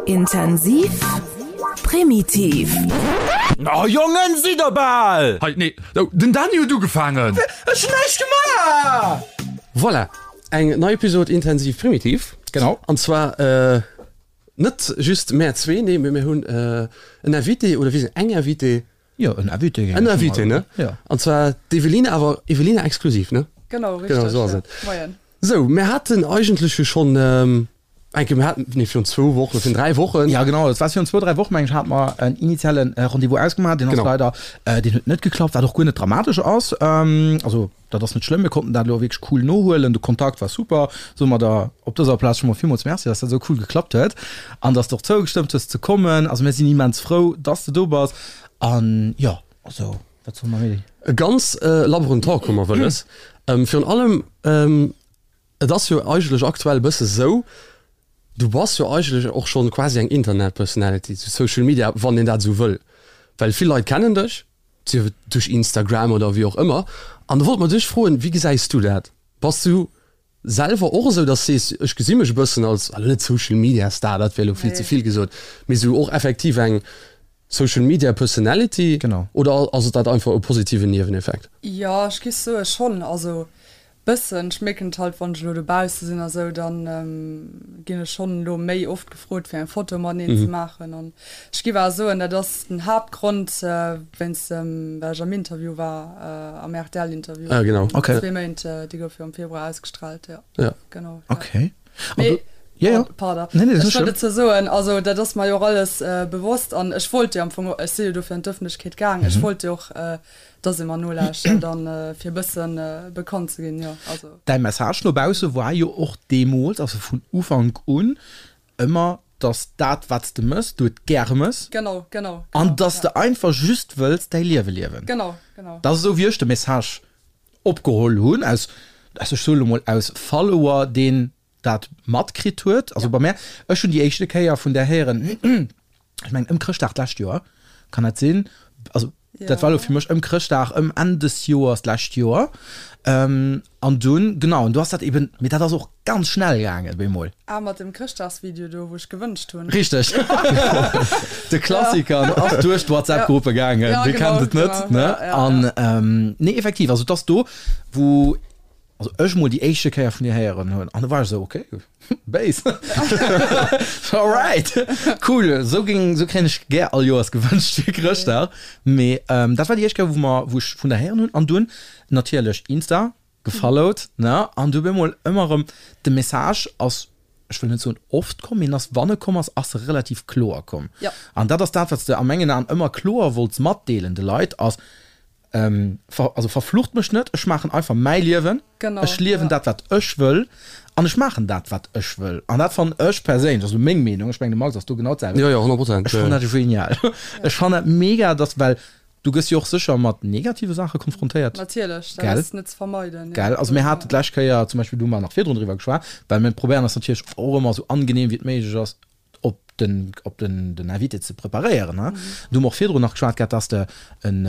Intensiv, primitiv. Oh Jongen, sidd der bal! Hei, nee, den Dany huet ugefaangen! Ech hunn näischt gemaach! Voilà, eng nei Episode Intensiv Primitiv. Genau. An zwar net just mär zwee, nee, mee mir hunn en Invité, oder wéi eng Invitée. Jo, en Invité. En Invité, ne? Jo. An zwar d'Eveline, awer Evelina exklusiv, ne? Genau, richteg. Genau, esou ass et. Moien. Sou, mir haten eigentlech jo schonn eng Kéier, mir haten, nee, virun zwou Wochen, virun dräi Wochen. Ja, genau, et war virun zwou, dräi Wochen, meng ech, hate mer en initiale Rendez-vous ausgemaach. Deen ass Genau. leider, deen huet net geklappt, wat och guer net dramatesch ass. Also, dat ass net schlëmm, mir konnten dat elo wierklech cool nohuelen, de Kontakt war super. Soe mer der op dëser Plaz scho mol villmools Merci, dass dat esou cool geklappt huet an dass de och zougestëmmt hues ze kommen. Also mir sinn immens frou, dass de do bass an jo, also wat solle mer méi? E ganz labberen Talk hu mer wëlles. Virun allem, et ass jo eigentlech aktuell e bësse sou, du bass jo eigentlech och schonn quasi eng Internet-Personality zu Social Media, wann een dat esou wëll, well vill Leit kennen dech, sief et duerch Instagram oder wéi och ëmmer. An da wollte mer dech froen, wéi gesäis du dat? Bass du selwer och esou, dass sees, ech gesi mech e bëssen als, elo net Social Media Star, dat wär elo vill ze vill gesot, mee esou och effektiv eng Social Media Personality? Genau. Oder ass et dat einfach e positiven Nieweneffekt? Jo, ech giff soe schonn. Also Bëssen, ech mierken et halt wann ech elo dobausse sinn a sou, dann ginn ech schonn elo méi oft gefrot fir eng Foto mateneen ze maachen an ech giff awer soen, dat ass den Haaptgrond wéinst dem well ech am Interview war, am rtl Interview Ah genau. Okay. zwee Méint, déi gouf jo am Februar ausgestrahlt, jo Ja. genau, ja. Okay. Mee Ja, ja. Pardon, Nee, nee, dat ass ech wollt net dozou soen, also dat ass mer jo och alles bewosst an ech wollt jo am Fong, ech si jo dofir an d'Ëffentlechkeet gaang, ech wollt jo och Dass ee mer nolauschtert an fir e bëssen bekannt ze ginn, jo, also. Däi Message no bausse war jo och deemools, also vun Ufank un, ëmmer, dass dat, wat s de mëss, du et gäre mëss. Genau, genau, genau. An dass de einfach just wëlls däi Liewe liewen. Genau, genau. Dat ass esou, wéi ech de Message opgeholl hunn, aus, ech soe lo mol, aus Follower, deen dat matkritt huet. Also bei mär, ech hunn déi éischte Kéier vun där héieren, ech mengen ëm Chrëschtdag d'lescht Joer, kann dat sinn? Also dat war elo fir mech ëm Chrëschtdag, ëm Enn des Joers d'lescht Joer. An dunn, genau, an du ass dat eben, mee dat ass och ganz schnell gaangen bemol. Ah, mat dem Chrëschtdagsvideo do, wou ech gewënscht hunn. Richteg, de Klassiker ass duerch d'Whatsapp-Gruppe gaangen, wie kennt et net, ne? An nee, effektiv, also et ass do, wou also ech mol déi éischte Kéier vun dir héieren hunn an du war ech esou, okay, Base. Alright, cool, esou géing, esou kréien ech gär all Joers gewënscht fir Chrëschtdag. Mee dat war déi éischt Kéier, wou mer, wou ech vun der héieren hunn an dunn natierlech Insta gefollowt, ne, an du bemol ëmmer erëm de Message ass, ech wëll net soen oft komm, mee en ass, wann e komm ass, ass e relativ kloer komm. An dat ass dat, wat s de a mengen Aen ëmmer kloer wollts matdeelen de Leit, ass, Ver, also verflucht mech net, ech maachen einfach mäi Liewen, Genau, ech liewen ja. dat wat ech wëll an ech maachen dat wat ech wëll. An dat fannen ech perséinlech, also meng Meenung, ech mengen de Max ass do genau d'selwecht, Jo, jo, 100 Prozent, ech fannen dat genial. Ech fannen dat mega, dass, well du gëss jo och sécher mat negative Saache konfrontéiert. Natierlech, dat Gell? ass net ze vermeiden, ja. Gell? Also mir haten d'lescht Kéier zum Beispill, do hu mer nach virdrun driwwer geschwat, well mir probéieren eis natierlech och ëmmer esou angenehm wéi et méiglech ass op den, op den, den Invité ze preparéieren. Ne? Mm. Du hu mer och virdrun nach geschwat gehat, dass de en,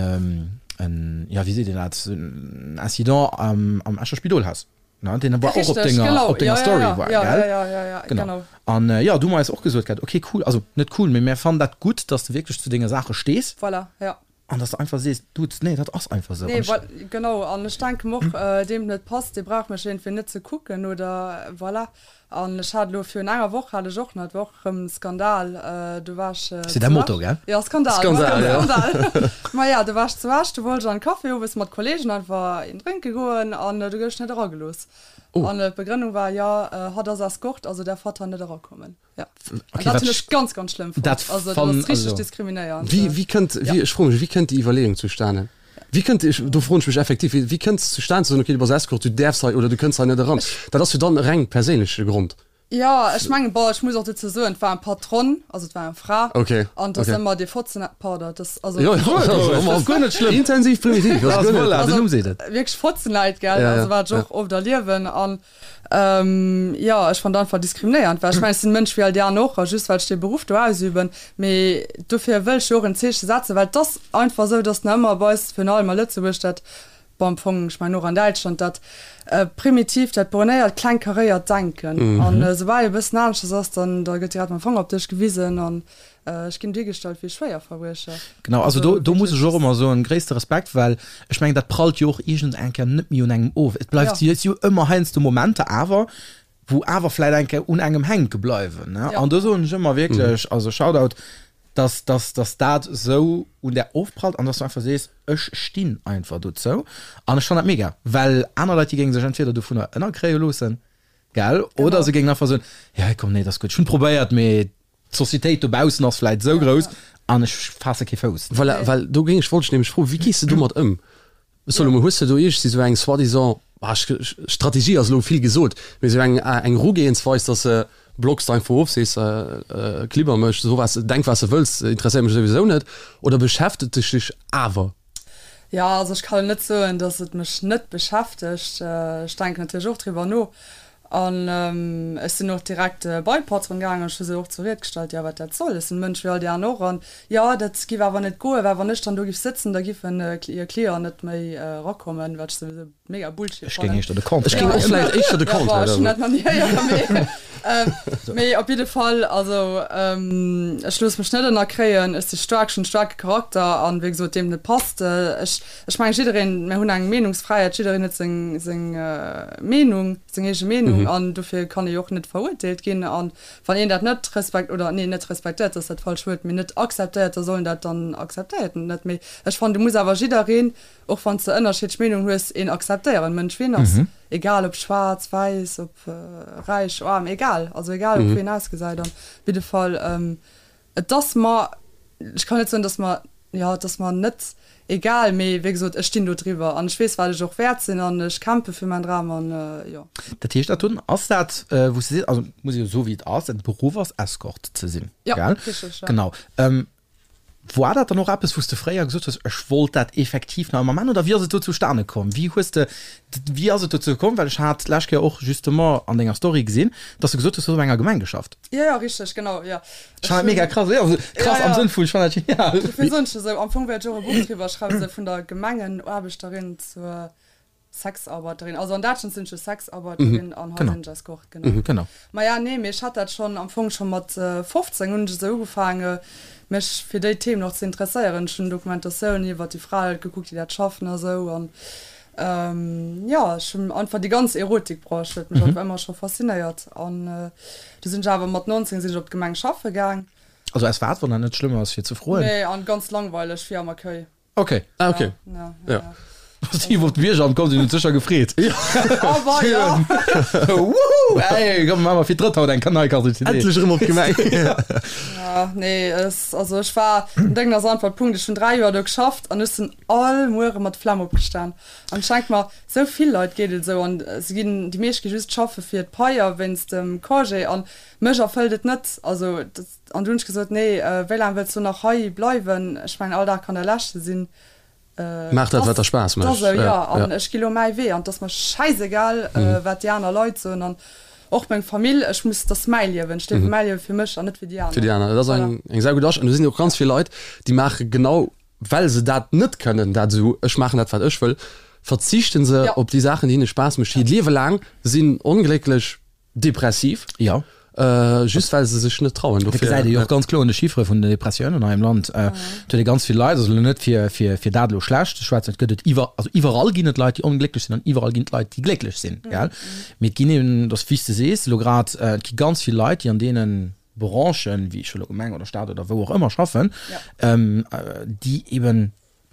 en, ja, wéi seet een dat, en Incident am, am Escher Spidol has. Ne? Deen war och op Richtig, denger, genau. op denger Ja, ja, Story ja, war, ja, gell? ja, ja, ja, ja, Genau. genau. An äh, ja, du hu mer eis och gesot gehat, okay, cool, also net cool, mee mir fannen dat gutt, dass de wierklech zu denge Saache stees. Voilà, ja. An dass de einfach sees, Dude, nee, dat ass einfach esou. Nee, An ech. voilà, genau. An ech denken och, deem et net passt, dee brauch mech iergendwéi net ze kucken oder voilà. An ech hat elo virun enger Woch hat ech och nach, et war och erëm e Skandal, do war ech C'est zu däi Motto, Esch. gell? Jo, Skandal, Skandal, ja. Skandal. Maja, do war ech zu Esch, do wollt ech an de Café owes mat Kollegen einfach een drénke goen an do gouf ech net eragelooss. An d'Begrënnung war, jo, hatt ass Escort, also därf hatt hei net erakommen. Ja. Okay, dat wat hunn ech ganz ganz schlëmm fonnt. Dat Also dat fann, ass richteg also. diskriminéiernd. Wéi, wéi kënnt, Ja. wéi, ech froe mech, wéi kënnt déi Iwwerleeung zustane? Wéi kënnt, ech, do froen ech mech effektiv, wéi, wéi kënnt es zustane ze soen, okay, du bass Escort, du däerfs hei oder du kënns hei net eran? Dat ass jo dann e reng perséinleche Grond. Jo, ech mengen, bon, ech muss och dozou soen, et war eng Patronne, also et war eng Fra. Okay, An et ass okay. ëmmer dee Fotzen, pardon, et ass, also. Jo, jo, also, Ass guer net schlëmm. Intensiv primitiv, ass guer net. Voilà, den Also, Numm seet et. wierklech Fotzenleit, gell, Ja, ja, also wat ech ja. och oft erliewen. An Jo, ech fannen dat einfach diskriminéiernd, well ech mengen, ech sinn e Mënsch wéi all déi aner och, a just well ech dee Beruff do ausüben. Mee dofir wëll ech jo och en Zeeche setzen, well et ass einfach esou, dass nach ëmmer bei eis, virun allem a Lëtzebuerg, dat. Bon, am Fong, ech mengen och an Däitschland, dat primitivt, dat bornéiert, klengkaréiert Denken. An esoubal ee bëssen aneschters ass, dann da gëtt direkt mam Fanger op dech gewisen an ech ginn duergestallt wéi e Schwéierverbriecher. Genau, also do, do muss ech och ëmmer soen, gréisste Respekt, well ech mengen, dat prallt jo och iergend eng Kéier net méi un engem of. Et bleift jo, et si jo ëmmer heiansdo Momenter awer, wou awer vläit eng Kéier un engem hänke bleiwen, ne? An do soen ech ëmmer wierklech, also Shoutout, dass, dass, dass dat esou un där ofprallt an dass du einfach sees, ech stinn einfach dozou an ech fannen dat mega, well aner Leit, déi géinge sech entweder dovunner ënnerkréie loossen, gell, oder se géingen einfach soen, jo komm, nee, dat ass gutt, ech hunn probéiert, mee d'Societéit dobaussen ass vläit esou grouss an ech faasse kee Fouss. Voilà, well do géing ech, wollt ech nämlech froen, wéi gees de domat ëm? Salomo, hues de do iergendwéi esou eng soi-disant, ah, Strategie ass elo vill gesot, mee esou eng eng Erugehensweis, dass de blocks de einfach of, sees, klibber mech, so was, denk wat s de wëlls, interesséiert mech souwisou net, oder beschäftegt dech dech awer? Jo, also ech kann net soen, dass et mech net beschäftegt. Ech denken natierlech och driwwer no An ech sinn och direkt bei d'Patron gaangen, ech hu se och zur Ried gestallt, jo, wat dat soll, ech sinn e Mënsch wéi all déi aner och, an jo, dat giff awer net goen, well wann ech dann do giff sëtzen, da giffen hir Clienten net méi erakommen, wat ech souwisou mega Bullshit Ech géing fannen. éischter de Contraire. Ech géing och vläicht éischter de Jo, bon, Contraire ech hunn soen. dat nach ni héieren, mee mee op jidde Fall, also ech loosse mech net ënnerkréien, ech si staark, ech hunn e staarke Charakter an, wéi gesot, deem et net passt, ech Ech mengen, jiddereen, mir hunn eng Meenungsfräiheet, jiddereen huet seng, seng Meenung, seng eege Meenung an dofir kann ee jo och net verurteelt ginn. A wann een dat net respekt, oder nee, net respektéiert, dat ass dat falscht Wuert, mee net akzeptéiert, da soll en dat dann akzeptéiert en et net. Mee ech fannen, du muss awer jiddereen, och wann s de ënnerschiddlech Meenungen hues, een akzeptéieren, Mënsch wéi en ass, egal ob schwaarz, wäiss, ob räich, aarm, egal, also egal ob wéi en ausgesäit. An op jidde Fall, Et ass mer, ech kann net soen, dass mer, jo, et ass mer net egal, mee wéi gesot, ech stinn do driwwer an ech weess, wat ech och wäert sinn an ech kämpfe fir mäin Dram an jo. Dat heescht, dat dunn ass dat, wou s de sees, also muss ee jo soe wéi et ass, däin Beruff ass Escort ze sinn, Jo, gell? richteg, jo. Genau. War dat dann och eppes, wou s de fréier gesot hues, ech wollt dat effektiv nach ëmmer maachen oder wéi ass et do zustane komm? Wéi hues de, wéi ass et dozou komm? Well ech hat d'lescht Kéier och justement an denger Story gesinn, dass de gesot hues, du hues op enger Gemeng geschafft. Jo, jo, richteg, genau, jo. Ech fannen dat mega krass, jo, also krass am Sënn vun, ech fannen dat genial. Dofir soen ech esou, am Fong wäert ech och e Buch driwwer schreiwen, esou vun der Gemengenaarbechterin zur Sexarbeiterin. Also an Däitschland sinn ech jo Sexarbeiterin an hei sinn ech Escort, genau. Genau. Maja, nee, mee ech hat dat schonn, am Fong scho mat 15 hunn ech esou ugefaange mech fir déi Themen och ze interesséieren. Ech hunn Dokumentatiounen iwwert déi Frae gekuckt, déi dat schaffen a sou an Jo, ech hunn einfach déi ganz Erotikbranche huet mech einfach ëmmer scho faszinéiert an du sinn ech awer mat 19 sinn ech op d'Gemeng schaffe gaang. Also aus wat, wann dat net schlëmm ass fir ze froen? Nee, an ganz langweileg, fir am Accueil. Ok. Ah ok, Ja, ja. ja. Si iwwer d'Bierger komm sinn, huet sécher gefreet. Oh wei, ja. Wouhou, ey, komm maache mer fir d'drëtt haut eng Kanalkarte CD. Endlech erëm op d'Gemeng. Ja, nee, es, also ech war, den Déngen ass einfach Punkt, ech hunn 3 Joer do geschafft an ech sinn all Muere mat Flemm opgestan. An ech denke mer, sou vill Leit geet et esou an se ginn, déi meescht gi just schaffe fir d'Pai a wéinst dem Congé an mech erfëllt et net. Also dat, an du hunn ech gesot, nee, wéi laang wëlls du nach hei bleiwen? Ech mengen all Dag kann der leschte sinn. Maach dat wat der Spaass mécht. Esou, jo, an ech gi lo mäi Wee an et ass mer schäisegal, wat déi aner Leit soen an och meng Famill, ech muss, dat ass mäi Liewen, ech liewe mäi Liewe fir mech an net fir déi aner. Fir déi aner, dat ass eng eng saugutt Astellung. An do sinn och ganz vill Leit, déi maache genau well se dat net kënnen, dat esou, ech maachen dat wat ech wëll, verzichten se op déi Saachen déi hinne Spaass mécht hiert Liewe laang, sinn onglécklech, depressiv, jo. Just well se sech net trauen. Dat gesäit ee jo och ganz kloer un de Chiffere vun den Depressiounen hei am Land. Et huet ee ganz vill Leit, also elo net fir, fir, fir dat elo schlecht ze schwätzen, et gëtt et iwwer, also iwwerall ginn et Leit, déi onglécklech sinn an iwwerall ginn et Leit, déi glécklech sinn, gell. Mee et ginn eben, et ass wéi s de sees elo grad, et gi ganz vill Leit, déi an deene Branchen, wéi ech elo Gemeng oder Staat oder wou och ëmmer schaffen, déi eben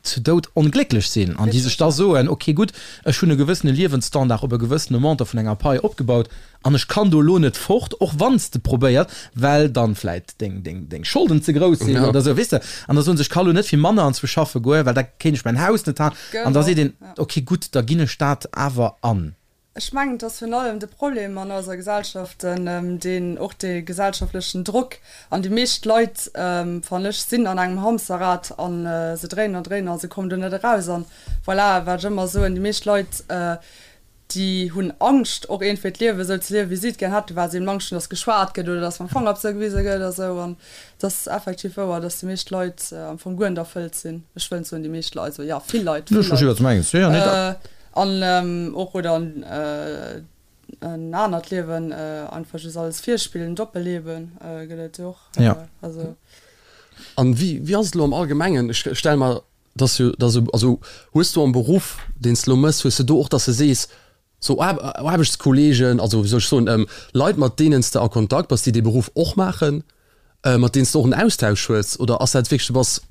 zu Doud onglécklech sinn an déi sech da soen, ok gutt, ech hunn e gewëssene Liewensstandard op e gewëssene Montant vun enger Pai opgebaut an ech kann do elo net fort, och wann s de probéiert, well dann vläit deng, deng, deng Scholden ze grouss sinn oder esou, weess de. An da soen se, ech ka lo net fir manner anzwousch schaffe goen, well da kéint ech mäin Haus net halen. An da seet een, ok gutt, da ginn ech dat awer an. Ech mengen, et ass virun allem de Problem an eiser Gesellschaft, deen och dee gesellschaftlechen Drock, an déi meescht Leit, fannen ech, sinn an engem Hamsterrad a se dréinen an dréinen a se kommen do net eraus. An voilà, wat ech ëmmer soen, déi meescht Leit. Déi hunn Angscht och iergendwéi d'Liewe sou ze liewen, wéi si et gär hätten, well se eben Angscht hunn, dass geschwat gëtt oder dass mam Fanger op se gewise gëtt a sou. An et ass effektiv wouer, dass déi meescht Leit am Fong guer net erfëllt sinn. Ech wëll net soen déi meescht Leit, also jo, vill Leit, vill Leit. An och oder en anert Liewen einfach just alles virspillen, Doppelleben gëtt et jo och. Also. An wéi, wéi ass et elo am Allgemengen? Ech stelle mer Dass jo, dass jo, also hues du am Beruff, deen s de elo méchs, hues de do och, dass de sees, sou Aarbechtskolleegen, also wéi soll ech soen, Leit, mat deenen s de a Kontakt bass, déi dee Beruff och maachen, mat deenen s de och en Austausch hues, oder ass dat wierklech, du bass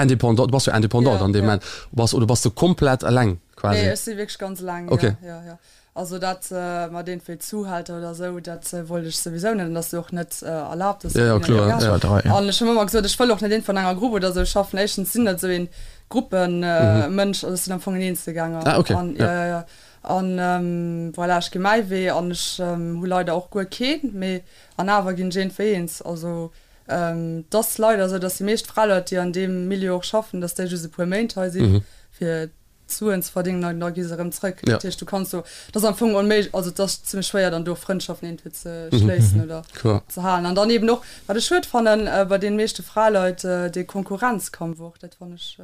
indépendant, du bass jo indépendant an deem Moment, bass, oder bass de komplett eleng quasi? Nee, ech si wierklech ganz eleng, jo, jo, jo. Also dat mat iergendwéi Zuhälter oder esou, dat wollt ech souwisou net an dat ass jo och net erlaabt. Ja, ja, kloer, ja. An ech hunn ëmmer gesot, ech wëll och net iergendwou an enger Grupp oder esou schaffen. Éischtens sinn net esou een Gruppenmënsch, also ech sinn am Fong en Eenzelgänger. Ah, okay. An, ja, ja, ja. An voilà, ech gi mäi Wee an ech hu leider och guer keen, mee an awer ginn ech iergendwéi eens. Also et ass leider esou, datt déi meescht Fraleit, déi an deem Milieu och schaffen, datt déi just e puer Méint hei sinn, fir Suen ze verdéngen an da gi se erëm zrëck. Dat heescht, du kanns do, dat ass am Fong onméiglech, also et ass zimmlech schwéier dann do Frëndschaften iergendwéi ze schléissen oder ze halen. An dann eben och, wat ech schued fannen bei deene meeschte Fraleit, dee Konkurrenzkampf och, dat fannen ech.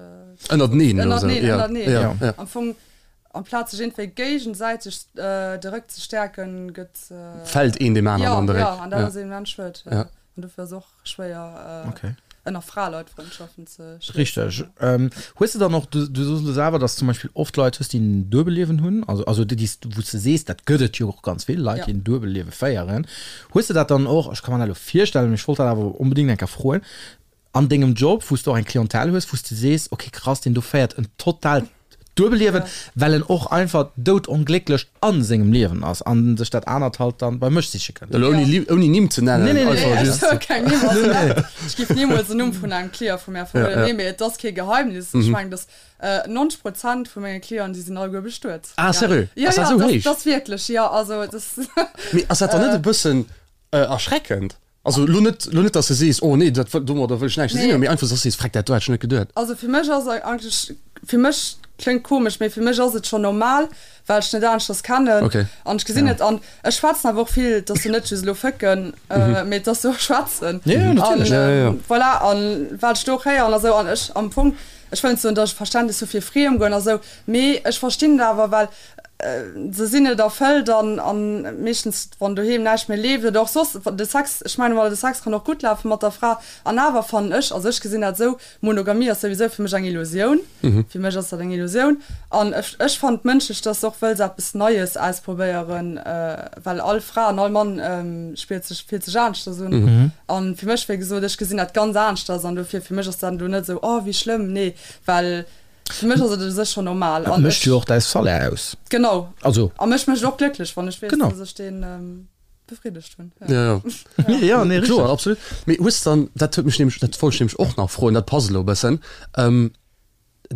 Ënnerteneen elo esou. Ënnerteneen, ënnerteneen. Am Fong, amplaz sech iergendwéi géigesäiteg de Réck ze stäerken, gëtt. Fält een deem aneren an de Réck. Jo, jo, an dat ass immens schued. An dofir ass och schwéier ënner Fraleit Frëndschaften ze schliessen. Richteg. Hues de dann och, du du soos elo selwer, dass zum Beispill oft Leit hues, déi en Duebelliewen hunn, also also déi s wou s de sees, dat gëtt et jo och ganz vill, Leit, déi en Duebelliewe féieren. Hues de dat dann och, ech ka mer dat elo virstellen, mee ech wollt dat awer onbedéngt eng Kéier froen, an dengem Job, wou s de och eng Clientèle hues, wou s de sees, okay krass, deen do féiert en totaalt Duebelliewen, well en och einfach doudonglécklech a sengem Liewen ass an sech dat anert halt dann bei mech siche kënnt. Elo ouni ouni Nimm ze nennen, Nee, nee, nee. einfach Ech just. soe keng Nimm, also dat, ech géif nimools en Numm vun engem Client vu mär verroden. Nee, mee et ass kee Geheimnis. Ech mengen, dass 90 Prozent vu menge Clienten, déi sinn alleguer bestuet. Ah, sérieux? Ja, Ass dat ja, esou héich? dat ass wierklech, jo, also dat. Mee ass dat dann net e bëssen erschreckend? Also lo net, lo net, dass de sees, oh nee, dat wëll, domadder wëll ech näischt ze dinn hunn, mee einfach, dass de sees, Freck, dat do hätt ech net geduet. Also fir mech ass eigentlech, fir mech, kléngt komesch, mee fir mech ass et schonn normal, well ech net aneschters kennen Okay. an ech gesinn et an ech schwätzen awer och vill, et ass jo net just elo fëcken, mee et ass jo och schwätzen. Jo, jo, natierlech. An Ja, ja, ja. voilà, an wat ech do och héieren a sou an ech am Fong, ech wëll net soen, dass ech Verständnis hu fir Friemgoen a sou, mee ech verstinn et awer, well Se sinn net erfëllt an an meeschtens wann doheem näischt méi leeft oder och soss de Sex, ech mengen emol de Sex kann och gutt lafe mat der Fra an awer fannen ech, also ech gesinn dat esou, Monogamie ass souwisou fir mech eng Illusioun, fir mech ass dat eng Illusioun an ech ech fannen et mënschlech, dass de och wëlls eppes Neies ausprobéieren, well all Fra an all Mann spiert sech, fillt sech aneschters un an fir mech wéi gesot, ech gesinn dat ganz aneschters an dofir fir mech ass dat elo net esou, oh wéi schlëmm, nee, well. Fir mech ass et u sech schonn normal. Et mécht jo och däi Salaire aus. Genau. Also. A mech mécht et och glécklech, wann ech weess, Genau. dass ech deen befriddegt hunn. Ja, ja. Ja, nee, Kloer, richteg. absolut. Mee hues de dann, dat huet mech nämlech, dat wollt ech nämlech och nach froen, dat passt elo e bëssen.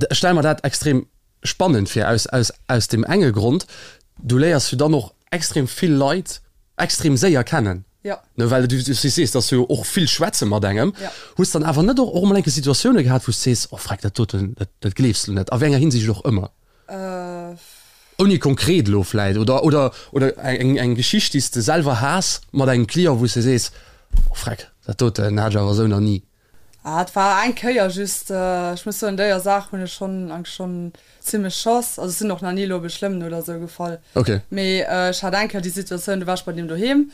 Ech stelle mer dat extrem spannend vir, aus, aus, aus deem enge Grond, du léiers jo dann och extrem vill Leit extrem séier kennen. Ja. Ne, well du, du sees, dass du jo och vill schwätze mat engem. Ja. Hues dann awer net och, och emol eng Kéier Situatioune gehat, wou s de sees, oh freck, dat doten, dat, dat gleefs de net, a wéi enger Hinsicht och ëmmer? Äh. Ouni konkret elo vläit, oder, oder, oder eng, eng Geschicht, déi s de selwer has mat engem Client, wou s de sees, oh freck, dat doten hat ech awer esou nach ni. Ah, et war eng Kéier just. Ech muss soen, déier Saach hunn ech schonn eigentlech schonn zimmlech Chance. Also ech sinn och nach ni elo op e Schlëmmen oder esou gefall. Okay. Mee ech hat eng Kéier déi Situatioun, do war ech bei deem doheem,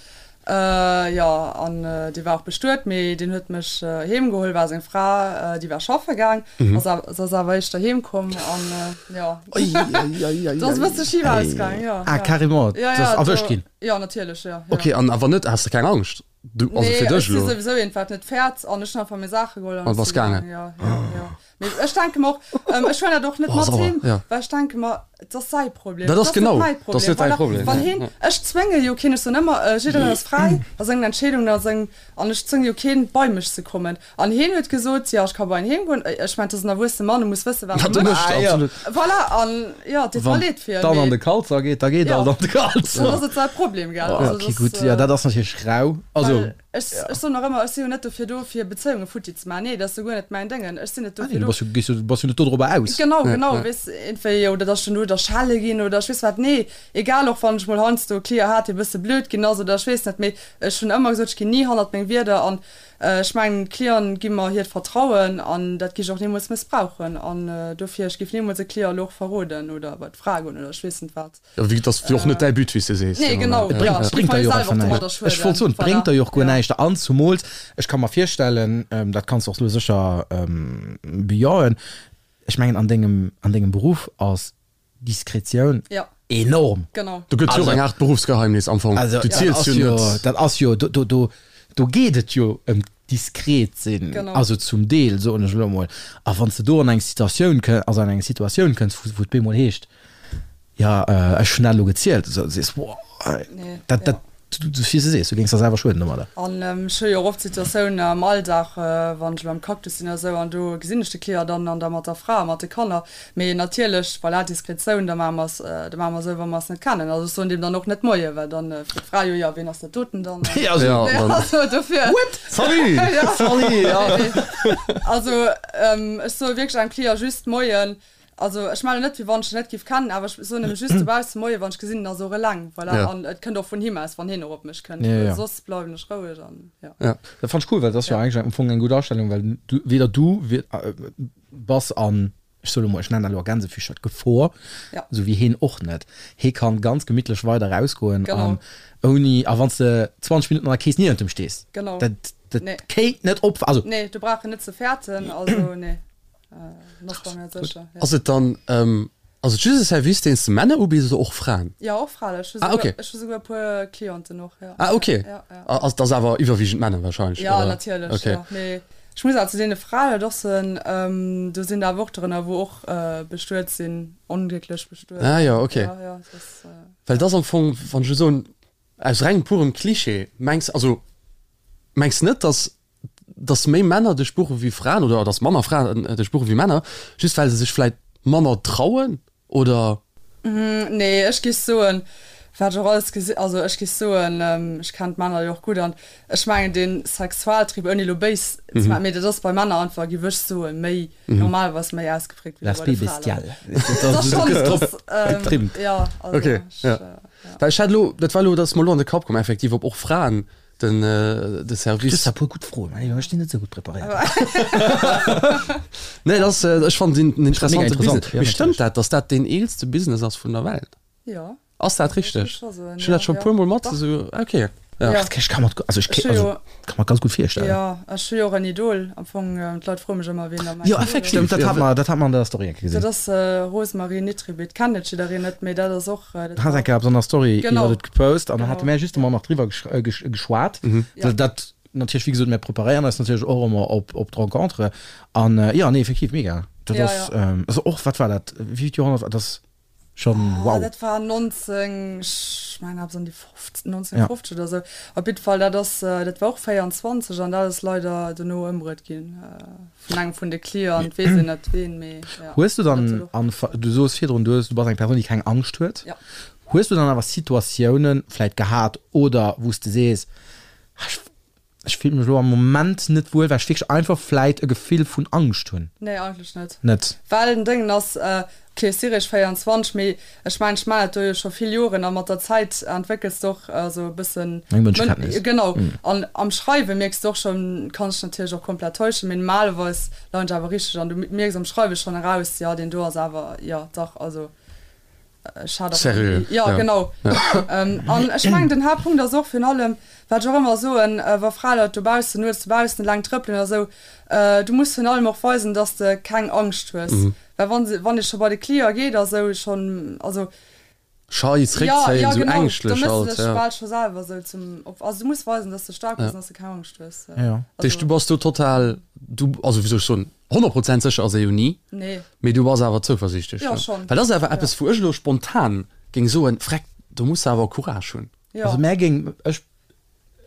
jo, an dee war och bestuet, mee deen huet mech heem geholl, war seng Fra, déi war schaffe gaang, ass awer, se ass awer éischter heem komm an jo, do ass e bësse schif ausgaang, jo. Ah, carrément, Jo, du jo, ass erwëscht do, ginn? jo, natierlech, jo, jo. Okay, an awer net, has de keng Angscht? Du, also Nee, fir ech dech si elo. souwisou een, wat net fäert an ech hunn einfach meng Saache geholl an An ech bass si gaangen. gaangen. Jo, jo, jo. Mee ech denke mer och, ähm, ech huelen dat och net Oh, mat sauer, heem, ja. well ech denke mer, et ass säi Problem, Dat et ass ass net genau, mäi dat ass Problem. net däi Voilà, Problem, wann ja, heen, ja. ech zwénge jo keen, ech soen ëmmer, äh, jiddereen ass fräi a sengen Entscheedungen a seng, an ech zwénge jo keen, bei mech ze kommen. An heen huet gesot, jo, ech ka bei en heem goen. Ech mengen, et ass en erwuessene Mann, e muss wëssen, wat Wat e e mécht. mécht, Ah, ja. absolut. Voilà, an jo, et deet mer Wann leed fir en, dann an de mee Kalzer geet, da geet jo, alt an de Kalzer. dann ass et säi Problem, gell. Oh, Also okay, dat gutt, ass, jo, dat ass natierlech rau. Also, well ech, ech soen och ëmmer, ech si jo net dofir do, fir Bezéiunge futti ze maachen. Nee, dat ass jo guer net mäin Déngen. Ech sinn net ah nee, dofir du do. bass jo, gees jo, bass jo net dodrobber aus. Genau, Ja, genau, ja. weess, iergendwéi, oder dass ech dann do, dass. oder schelle ginn oder ech weess wat. Nee, egal och wann ech mol heiansdo e Client hat, dee bësse blöd ginn ass oder ech weess net, mee ech hunn ëmmer gesot, ech ginn ni hannert meng Wierder an ech mengen, d'Clienten gi mer hiert Vertrauen an dat gi ech och nimools mëssbrauchen an dofir, ech géif nimools e Client elo och verroden oder bei d'Fra goen oder ech weess net wat. Jo, wéi, dat ass jo och net däi But, wéi s de sees. Nee, genau, Et bréngt, bréngt der jo och einfach näischt. Ech wollt soen, et bréngt der jo och guer näischt. An zumools, ech ka mer virstellen, dat kanns de och elo sécher bejahen, ech mengen an dengem, an dengem Beruff ass Diskretioun enorm. Genau. Do gëtt jo och eng Aart Beruffsgeheimnis am Fong. Du ziels jo net. Dat ass jo, do, do, do geet et jo ëm diskret sinn, also zum Deel, soen ech elo emol. A wann s de do an eng Situatioun kënn, also an eng Situatioun kënns, wou et bemol heescht, Jo, ech hunn dat elo gezielt, esou, du sees, Woah, dat, dat, wéi s de sees, du géings der selwer schueden domadder. An ech hu jo och oft Situatiounen am Alldag, wann ech elo am Cactus sinn oder esou, an do gesinn ech de Client dann an da mat der Fra a mat de Kanner. Mee natierlech, voilà, Diskretioun, da maache mer es, da maache mer esou, wa mer es net kennen. Also ech soen deem dann och net Moie, well dann freet d'Fra jo, jo, wien ass dat doten dann? Also dofir. What? Salut! Salut, jo. Also ech soe wierklech engem Client just Moien. Also ech mellen net wéi wann ech en net giff kennen, awer ech soen em just dobaussen Moie wann ech gesinn en ass och eleng, voilà, Ja. an et kënnt och vun him aus wann hien och op mech kënnt, Ja, well ja. soss bleiwen ech roueg an ja. Ja. Dat fannt ech cool, well dat ass jo eigentlech am Fong eng gutt Astellung, well du, weder du bass an, ech soe lo mol, ech nennen dat elo a Gänsefüßcher, d'Gefor, Ja. esou wéi heen och net. Hee kann ganz gemittlech weider rausgoen Genau. an ouni, a wann s de 20 Minutten an der Kees niewent em stees, Genau. dat, dat Nee. kéint net op, also. Nee, do brauch en net ze fäerten, also nee. Ass et dann ass et just e Service deen s de Männer ubiss oder och Fraen? Jo och Fraen, ech hu ah, okay. ech hu souguer e puer Clienten och jo. Ah okay. Ja, ja. Ass dat awer iwwerwiegend Männer wahrscheinlech? Ja oder? natierlech okay. jo. Mee ech muss awer zu deene Fraen et och soen, do sinn der awer och drënner wou och bestuet sinn, onglécklech bestuet. Ah jo okay. Ja, ja, dat ass. Well dat ass am Fong, wann ech elo soen, aus rengem purem Klischee, mengs also mengs net datt dass méi Männer dech buche wéi Fraen oder dass manner Fraen dech buche wéi Männer, just well se sech vläit manner trauen oder? Nee, ech géif soen, wat ech och alles gesi, also ech géif soen, ech kennen d'Männer jo och gutt an ech mengen dee Sexualtrieb, ouni elo béis ze maachen, mee dat ass bei Männer einfach, géif ech soen, méi normalerweis méi ausgeprägt wéi bei de L'aspect Fraen. bestial. Dat ass schonn, dat ass, Getrimmt. jo, also Okay, ech, ja. ja. Well ech hat elo, dat war elo, dat ass mer elo an de Kapp komm, effektiv, ob och Fraen Den de Service. Du hues e puer gutt Froen, mä ech sinn net esou gutt preparéiert. Nee, dat ass, ech fannen en interessante interessant, Business. ja, Mee stëmmt natierlech. dat, datt dat deen eelste Business ass vun der Welt? Jo. Ass dat Ech richteg? géif scho soen, Ech hunn ja, dat scho e ja. puer Mol mat Dach. esou, okay, ja. Ja. Ech ka mer, also ech, Ech hu also jo, ka mer ganz gutt virstellen. jo, ech hu jo och en Idol am Fong. D'Leit froe mech ëmmer, wien da mäin Jo, Idol ass. effektiv. Stëmmt, dat Ja, hat mer, dat hat mer an der Story eng Kéier Dat gesinn. ass Rosemarie Nitribitt. Kennt net jiddereen net, mee dat ass och, dat Hat war eng Kéier eppes an der Story Genau. iwwert et gepost an dann Genau. hate mär justement nach driwwer geschwat. Ja. Dat natierlech, wéi gesot, mär preparéieren eis natierlech och ëmmer op, op d'Rencontre an jo, nee, effektiv mega. Dat Ja, ass, ja. also och, wat war dat, wéi vill Joerhonnert war dat? Schon Ah, wow. dat war 19, ech mengen eppes an déi 50, 1950 oder sou. Op jiddwer Fall, dat ass, dat war och 24 an dat ass leider dono ëmbruet ginn vun engem vun de Clienten, weess een net ween, mee ja. Hues du Dat dann huet och an, du soos virdrun, du hues, du bass eng Persoun, déi keng Angscht huet. Ja. Hues du dann awer Situatiounen vläit gehat oder wou s de sees, ah, ech, Ech fillen mech elo am Moment net wuel, well ech wierklech einfach vläit e Gefill vun Angscht hunn. Nee, eigentlech net. Net? Well den Déngen ass, ok, ech si réischt 24, mee ech mengen, ech maachen dat do jo scho vill Joren a mat der Zäit entwéckels de och esou e bëssen Eng Mënschekenntnis. Genau. An am Schreiwe mierks de och schonn, kann ech natierlech och komplett täuschen, mee normalerweis leien ech awer richteg an du mierks am Schreiwe schonn eraus, jo, deen do ass awer, jo, dach, also. Seriö, ja, ja. genau. An ech mengen den Haaptpunkt ass och virun allem, wat ech och ëmmer soen, wa Fraleit dobaussen, nuets dobaussen eleng trëppelen oder esou, du muss virun allem och weisen, dass de keng Angscht hues. Well wann se, wann ee scho bei de Client geet a sou schonn, also. Schei, Ja, zréckzéien, ja esou genau, da ängschtlech méchs de halt, dech ja. bal scho selwer esou zum Opfer. Also du muss weisen, dass de staark bass an dass de keng Angscht hues. Ja. Dat heescht, du bass do total, du, also wéi soll ech soen, 100 Prozent sécher ass ee jo ni. Nee. Mee du bass awer zouversiichtlech, Jo, ne? schonn. Well dat ass awer eppes, wou ech elo spontan géing soen, Vreck, do muss de awer Courage hunn. Jo. Also mär géing, ech,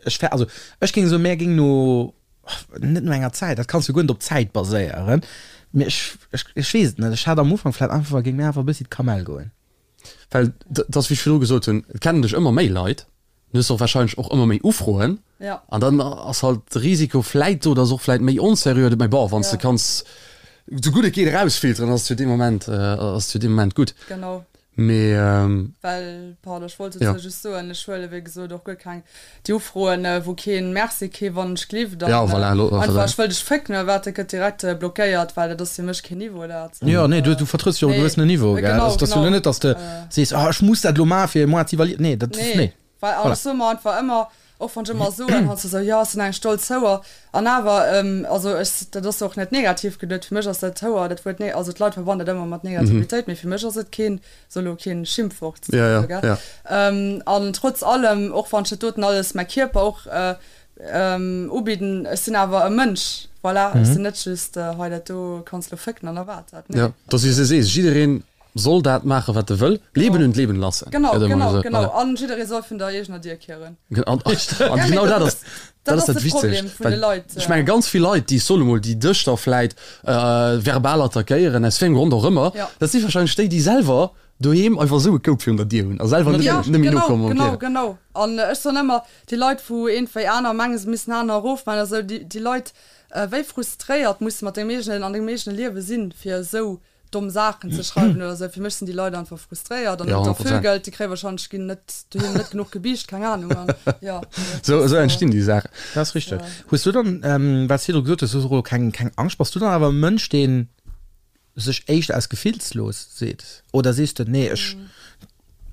ech wär, also ech géing soen, mär géing no, net no enger Zäit, dat kanns du guer net op Zäit baséieren, mee ech, ech, ech weess et net, ech hat am Ufank vläicht einfach, géing mär einfach e bëssi d'Kamell goen. Well dat ass, wéi ech virdru gesot hunn, et kennen dech ëmmer méi Leit, du hues och wahrscheinlech och ëmmer méi Ufroen. Ja. An dann ass halt de Risiko vläit do, dass och vläit méi onseriö, mä bon, wann s de Ja. kanns esou gutt et geet erausfilteren, ass et jo dee Moment, ass et jo dee Moment gutt. Genau. Mee. Well, pardon, ech wollt dozou just soen, ech huele wéi gesot och guer keng déi Ufroen, wou keen Merci, kee wann ech glift an einfach ech wëll dech fécken oder wat, dat gëtt direkt blockéiert, well dat ass fir mech keen Niveau dat. Jo, nee, du vertrëtts jo och e gewëssenen Niveau, gell? Also et ass jo elo net, datt s de sees, oh ech muss dat elo maachen, fir moi ze valider, nee, dat ass, nee. Well an ech soe mer einfach ëmmer, och wann ech ëmmer soen, heiansdo esou, jo, ech sinn eng stolz Houer, an awer, also ech, dat ass och net negativ geduet, fir mech ass dat Houer, dat Wuert, also d'Leit verbannen dat ëmmer mat Negativitéit, mee fir mech ass et keen, so elo keen Schimpfwort, esou, gell. An trotz allem, och wann ech dat doten alles, mäi Kierper och ubidden, ech sinn awer e Mënsch, voilà, ech sinn net just, hei dat do kanns elo fécken an da war et dat, nee. Jo, dass s de sees, jiddereen Soll dat maachen, wat e wëll. Leben und leben lassen. Genau, genau, genau. An jidderee soll vun der eegener Dier kieren. An genau dat ass, dat ass dat Wichtegst. Well ech menge ganz vill Leit, déi, ech soen emol, déi dech da vläit verbal attackéieren, aus wéi engem Grond och ëmmer, dat si warscheinlech déi, déi selwer doheem einfach esou e Koup virun der Dier hunn a selwer net méi nokommen. Genau, genau. An ech soen ëmmer, déi Leit, wou iergendwéi aner mengen, se missten aner erofmaachen oder esou, déi Leit, wéi frustréiert musse mat dengem eegenen, an dengem eegene Liewe sinn, fir esou domm Saachen ze schreiwen oder sou. Fir mech sinn déi Leit einfach frustréiert an Ja, 100%. Vögelt, déi kréie wahrscheinlech ginn net doheem net genuch gebiischt, keng Ahnung an ja. Sou, esou entstinn déi Saachen. Dat ass richteg. Hues du dann, wat s virdru gesot hues, du hues och elo keng, keng Angscht, bass du dann awer e Mënsch, dee sech éischter aus gefillslos seet oder sees de, nee ech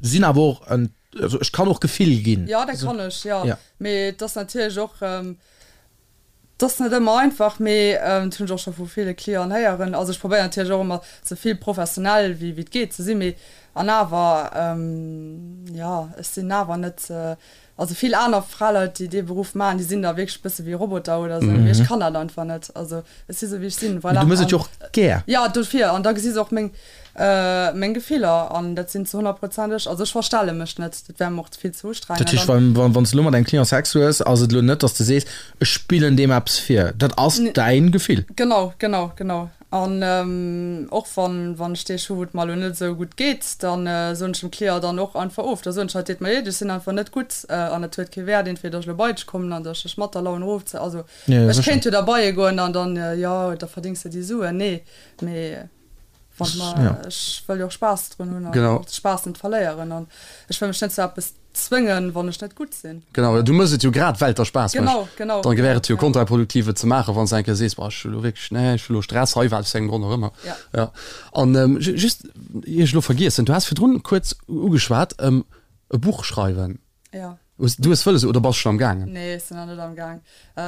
sinn awer och en, also ech kann och Gefill ginn? Jo, dat kann ech, jo. Mee et ass natierlech och, 't ass net ëmmer einfach, mee dat hunn ech och scho vu ville Clienten héieren. Also ech probéieren natierlech och ëmmer sou vill professionell wéi wéi et geet ze sinn, mee an awer, jo, ech sinn awer net, also vill aner Fraleit déi dee Beruff maachen, déi sinn da wierklech e bësse wéi Roboter oder sou, mee ech kann dat einfach net. Also ech si sou wéi ech sinn, voilà. Mee du mëss et jo och gär. Jo, dofir, an da gesi se och meng meng Gefiller an dat sinn zu 100 Prozent ech. Also ech verstelle mech net, dat wär mer och vill ze ustrengend. Dat heescht, wann wann s de elo mat engem Client Sex hues, ass et elo net, datt s de sees, ech spillen deem eppes vir. Dat ass däin Gefill. Genau, genau, genau. An och wann wann ech Deeg hu wou et mer elo net esou gutt geet, da soen ech dem Client dann och einfach of. Da soen ech, hei et deet mer leed, ech sinn einfach net gutt an et huet kee Wäert entweder ech elo bei dech kommen an datt ech dech mat der Laun erofzéien. Also ech kéint jo da bei e goen an dann, jo da verdéngs de déi Suen. Nee, mee. Wann mer, ja. Ech wëll jo och Spaass drun hunn an och de Spaass net verléieren an ech wëll mech net zu eppes zwëngen, wann ech net gutt sinn. Genau, du mëss et jo grad well et der Spaass mécht. Genau, genau. Dann wär et jo kontraproduktiv et ze maachen, wann s de eng Kéier sees, boah ech hu lo wierklech, nee ech hu lo Stress hei, wat aus wéi engem Grond och ëmmer. Ja. Ja. An just, ier ech elo vergiessen, du has virdrun kuerz ugeschwat, e Buch schreiwen. Ja. Hues du es wëlles oder bass schon am gaangen? Nee, ech sinn nach net am Gaang.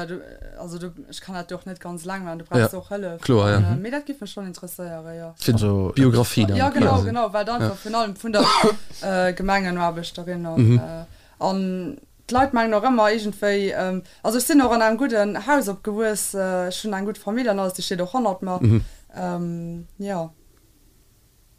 Du, also du, ech kann dat jo och net ganz eleng maachen, du brauchs ja. och Hëllef. Kloer, ja. Mee dat giff mech schon interesséieren, jo. Fir also, d'Biografie dann. Ja, genau, genau, well dann einfach virun allem vun der Gemengenaarbechterin an, mhm. an d'Leit mengen och ëmmer iergendwéi, also ech sinn och an engem gudden Haus opgewuess, ech hunn eng gutt Famill an alles, déi steet och hannert mer. Mhm. Jo.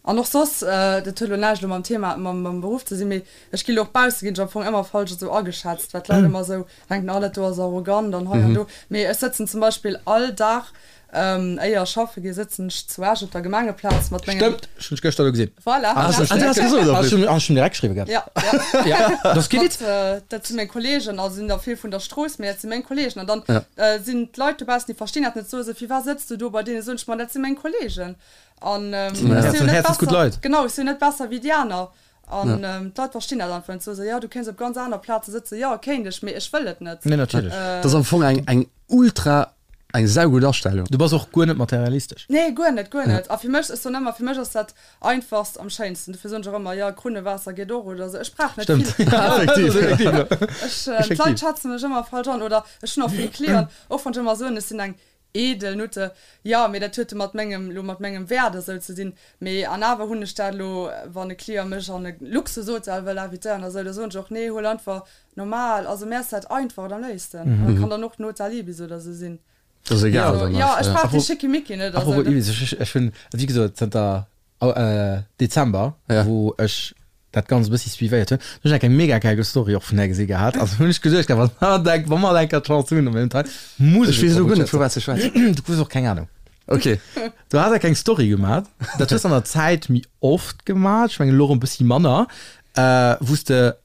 An och soss, dat huet elo näischt elo mam Thema, mam Beruff ze sinn, mee ech gi lo och bausse ginn ech am Fong ëmmer falsch esou ageschätzt, well d'Leit ëmmer esou denken, oh dat do ass arrogant an hei an do. Mee ech sëtzen zum Beispill all Dag, éier ech schaffe gi, sëtzen ech zu Esch op der Gemengeplaz mat mengen. Stëmmt, ech hunn dech gëschter do gesinn. Voilà. Ah, hast du das gesot? Ech hunn ech hunn direkt geschriwwen gehat. Ja, ja. Ja, dat ass kee Witz. Dat si meng Kollegen, also sinn der vill vun der Strooss, mee dat si meng Kollegen. An dann sinn d'Leit dobaussen, déi verstinn dat net, soe se, Firwat sëtz du do bei deenen? Soen ech, Ma dat si meng Kollegen. An ech sinn jo net besser, genau, ech sinn jo net besser wéi déi aner. An d'Leit verstinn dat einfach net. Soe se, jo, du kéints op ganz aner Plaze sëtzen. Jo, kéint ech, mee ech wëll et net. Nee, natierlech. Dat ass am Fong eng, eng ultra, eng saugutt Astellung. Du bass och guer net materialistesch. Nee, guer net, guer net. A fir mech, ech soen ëmmer, fir mech ass dat Einfachst am schéinsten. Dofir soen ech och ëmmer, jo, Krunnewaasser geet och oder esou. Ech brauch net vill. Stëmmt. Effektiv. Ech, d'Leit schätze mech ëmmer falsch an. Oder ech hunn och vill Clienten, och wann ech ëmmer soen, ech sinn eng Edel Nutte, jo, mee dat huet jo mat mengem, lo mat mengem Wäert esou ze dinn. Mee an awer hunn ech dat elo, wann e Client mech an e Luxushotel wëll invitéieren oder esou, da soen ech och, nee, huel einfach normal. Also mär ass dat Einfacht am léifsten. An dat kann dann och den Hotel Ibis oder esou sinn. Dat ass egal Also dann jo, ech brauch dee Schickimicki net. Apropos Ibis, ech hunn, wéi gesot, zënter Dezember, wou ech dat Ganzt e bëssi suivéiert hunn, hunn ech eng mega geil Story och vun där gesi gehat. Also hunn ech geduecht, wa mer eng, wa mer eng Kéier d'Chance hunn, op engem Teil, muss ech. Ech weess elo guer net, vu wat s de schwätz. Du hues och keng Anung. Ok. Du has eng Story gemaat, dat hues de an der Zäit méi oft gemaat, ech mengen elo erëm e bëssi manner, wou s de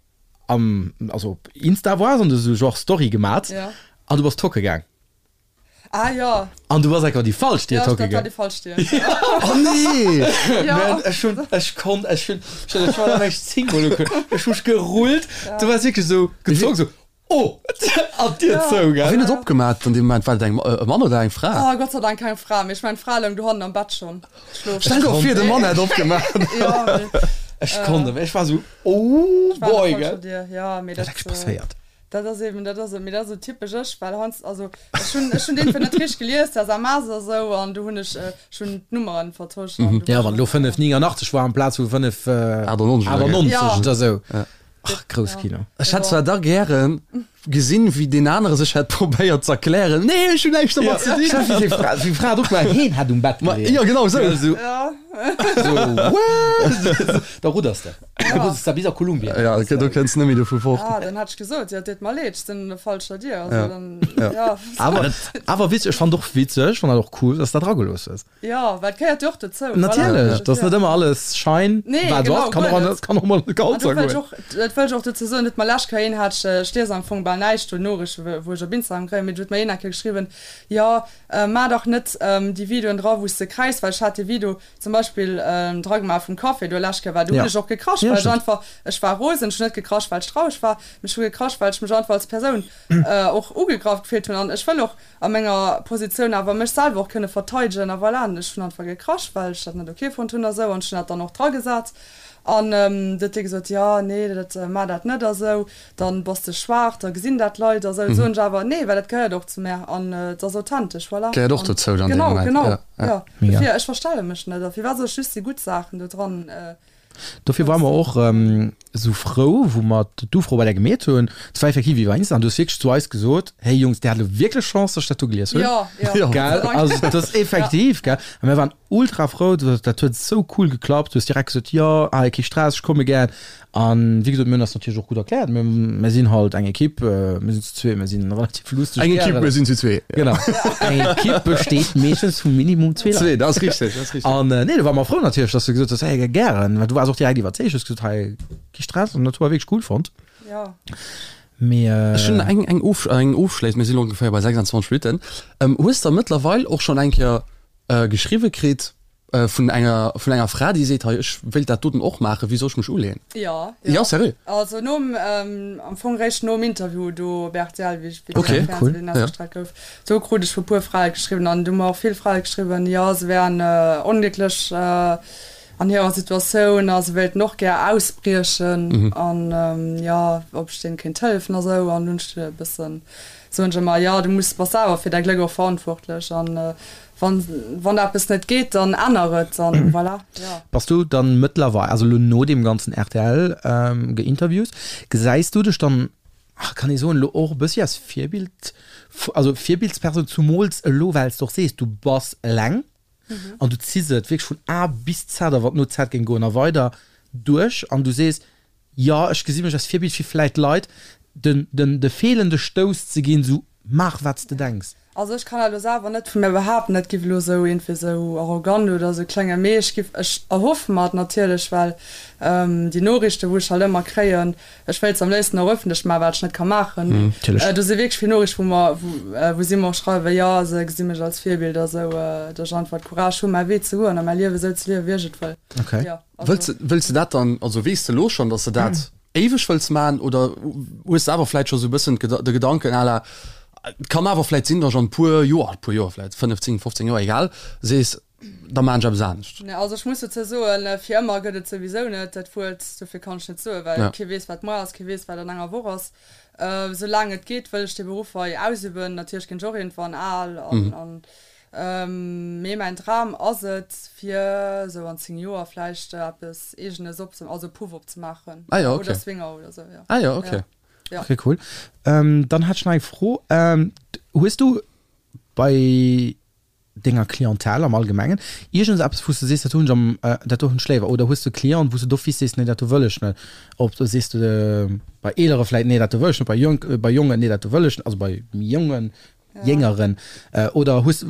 am, also op Insta waars an du hues esou genre Story gemaat an du bass tocke gaang. Ah jo. An du bass enker déi falsch Dier Ja, tocke dat war gaang. déi falsch Dier. Oh nee! Ja. Man, ech hunn, ech konnt, ech hunn, ech hunn, ech war ech 10 mol ugeguckt, ech hu mech gerullt, du waars wierklech esou gezongen, esou oh! An d'Dier Ja. zou, A gell? wien huet opgemaat an deem Moment? War dat eng, e Mann oder eng Fra? Oh, Gott sei Dank keng Fra, mee ech mengen d'Fra loung dohannen am Bett schonn schlofen. Stell der vir, de Mann hätt opgemaat. Ja, mee. Ech konnt net méi, ech war esou oh Ech war an der boy, falscher gell? Dier, ja, mee Wat dat. ass eigentlich passéiert? Dat ass eben, dat ass, mee dat ass esou typesch ech, well heiansdo, also ech hunn, ech hunn deen net richteg gelies, der SMS a sou, an du hunn ech, ech hunn d'Nummeren vertosch an du Ja, war wann elo ech 5, 89 war amplaz vu 5, 98 oder 98 Ja. oder sou. Ach, grouss Kino. Ech hätt zwar da gären gesinn, wéi deen anere sech hätt probéiert z'erklären, Nee, ech hunn näischt domat ze dinn. Wéi d'Fra, wéi d'Fra et opgemaach huet, heen hätt um Bett Ma geleeën. jo, genau sou. Ja, sou, Ja. sou, what? Da rudders de. Du muss da bis a Kolumbien. Ja, okay, do kënns net méi dovu fort. Ah, dann hat ech gesot, jo, deet mer leed, ech sinn an der falscher Dier. Also Ja. dann, Ja. ja. Awer, awer witzeg, ech fand och witzeg, fand dat och cool, dass du dat dragelooss hues. Ja, well et gehéiert jo och dozou. Natierlech, Voilà. dass net ëmmer alles schein, Nee, wat genau, ass, kann guer och, net. kann och mol An kalt do wëll ech goen. och, dat wëll ech och dozou soen, huet mer lescht Kéier een, hat ech, ech lies am Fong bal näischt do Noriichten, wou ech op Instagram kréien, mee do huet mer een eng Kéier geschriwwen, jo, maach dach net déi Videoen dra, wou s de kräischs, well ech hat dee Video, Zum Beispill d'Ragmar vum Café do lescht Kéier war, do hunn ech och gekrasch, well ech einfach, ech war rosen, ech hunn net gekrasch, well ech traureg war, mee ech hu gekrasch, well ech mech einfach als Persoun och ugegraff gefillt hunn an ech wëll och a menger Positioun awer mech selwer och kënne verteidegen a voilà. An ech hunn einfach gekrasch, well ech dat net ok fonnt hunn a sou an ech hunn dat dann och dragesat an du huet dee gesot, jo, nee, dat, maach dat net a sou, dann bass de schwaach, da gesinn dat d'Leit a sou. Soen ech awer, nee, well dat gehéiert och zu mär an et ass authentesch, voilà. Gehéiert och dozou dann dee Genau, Moment, genau. ja. Ja, Mega. dofir, ech verstelle mech net. A firwat soll ech just déi gutt Saachen do dran Dofir ware mer och esou frou, wou mer d'Ufro bei där gemeet hunn. Et war effektiv iwwer Insta an du hues wierklech zu eis gesot, Hey Jungs, dir hat elo wierklech Chance, dass ech dat do gelies hunn. Ja, ja. Gell? Also dat ass effektiv, gell? A mir waren ultra frou, dat huet esou cool geklappt. Du hues direkt gesot, Jo, hei, kee Stress, ech komme gär. An wéi gesot, mir hunn eis natierlech och gutt erkläert. Mir, mir sinn halt eng Ekipp, mir sinn zu zwee, mir sinn relativ lusteg Eng Ekipp, mir sinn zu zwee. Genau. Eng Ekipp besteet meeschtens vu Minimum zwee Leit. Zwee, dat ass richteg, dat ass richteg. An nee, do ware mer frou natierlech, dass du gesot hues, hey, gären. Well du waars och direkt iwwerzeegt, hues gesot, hei, kee Stress. An dat hu mer wierklech cool fonnt. Ja. Mee. Ech hunn eng, eng, of, eng ofschléissend, mir sinn elo ongeféier bei 26 Minutten. Hues de mëttlerweil och schonn eng Kéier geschriwwe kritt, Vun enger, vun enger Fra, déi seet, hei, ech wéilt dat doten och maachen, wéi soll ech mech uleeën? Jo, jo. Jo, sérieux? Also nom, am Fong réischt nom Interview do op rtl, wéi ech, wéi Okay, den cool, Fernseh ja. ausgestrahlt gouf, do krut ech vu puer Frae geschriwwen an du hu mer och vill Frae geschriwwen, jo, se wären onglécklech an hirer Situatioun a se wéilten och gär ausbriechen an jo, ob ech deene kéint hëllefen a sou. An dunn hunn ech e bëssen, soen ech ëmmer, jo, du muss, bass selwer fir däi Gléck och verantwortlech an Wann, wann eppes net geet, dann änner et an voilà, jo. Bass du dann mëttlerweil, also elo no deem ganzen rtl Geinterviews, gesäis du dech dann, ach kann ee soen, elo och e bëssi als Virbild, also Virbildspersoun, zumools elo well s de och sees, du bass eleng an du ziss et wierklech vun A bis Z a wann et no Z géing goen a weider duerch an du sees, Jo, ech gesi mech als Virbild fir vläit Leit den den de feelende Stouss ze ginn, sou maach wat s de denks. Also ech kann dat elo selwer net vu mir behaapten, dat giff elo sou iergendwéi sou arrogant oder sou kléngen, mee ech giff, ech erhoffe mer et natierlech, well déi Noriichten wou ech halt ëmmer kréien, ech wéilt se am léifsten och ëffentlech maachen, wat ech net ka maachen, mee do si wierklech vill Noriichten wou mer, wou si mer och schreiwen, jo se gesi mech als Virbild a sou, datt ech einfach d'Courage hu mäi Wee ze goen a mäi Liewe sou ze liewen wéi ech et wëll. Jo. Wëlls de, wëlls de dat dann, also weess de elo schonn, datt de dat éiweg wëlls maachen oder hues de awer vläit scho sou e bëssen de Gedanken à la, et kann awer vläit sinn, datt ech an e puer Joer, e puer Joer, vläit 5, 10, 15 Joer, egal, sees, da maachen ech eppes anescht? Nee, also ech muss dozou soen, fir ëmmer gëtt et souwisou net, dat Wuert, dofir kann ech net soen, well kee weess, wat muer ass, kee weess, wat an enger Woch ass. Soulaang et geet, wëll ech dee Beruff hei ausüben. Natierlech ginn ech och iergendwann al an Mee mäin Dram ass et fir esou an 10 Joer vläicht eppes eegenes op also e Puff opzemaachen. Ah jo, okay. Oder Swinger oder esou, jo. Ah jo, okay. Ja. Okay, cool. Dann hätt ech nach eng Fro. Hues du bei denger Clientèle am Allgemengen iergends eppes wou s de sees, dat hunn ech am, dat do hunn ech léiwer? Oder hues du Clienten wou s de d'office sees, nee dat do wëll ech net? Ob sees de bei eelere vläit, nee dat do wëll ech net, bei jonk, bei jongen, nee dat do wëll ech net, also bei méi jongen Jéngeren oder hues,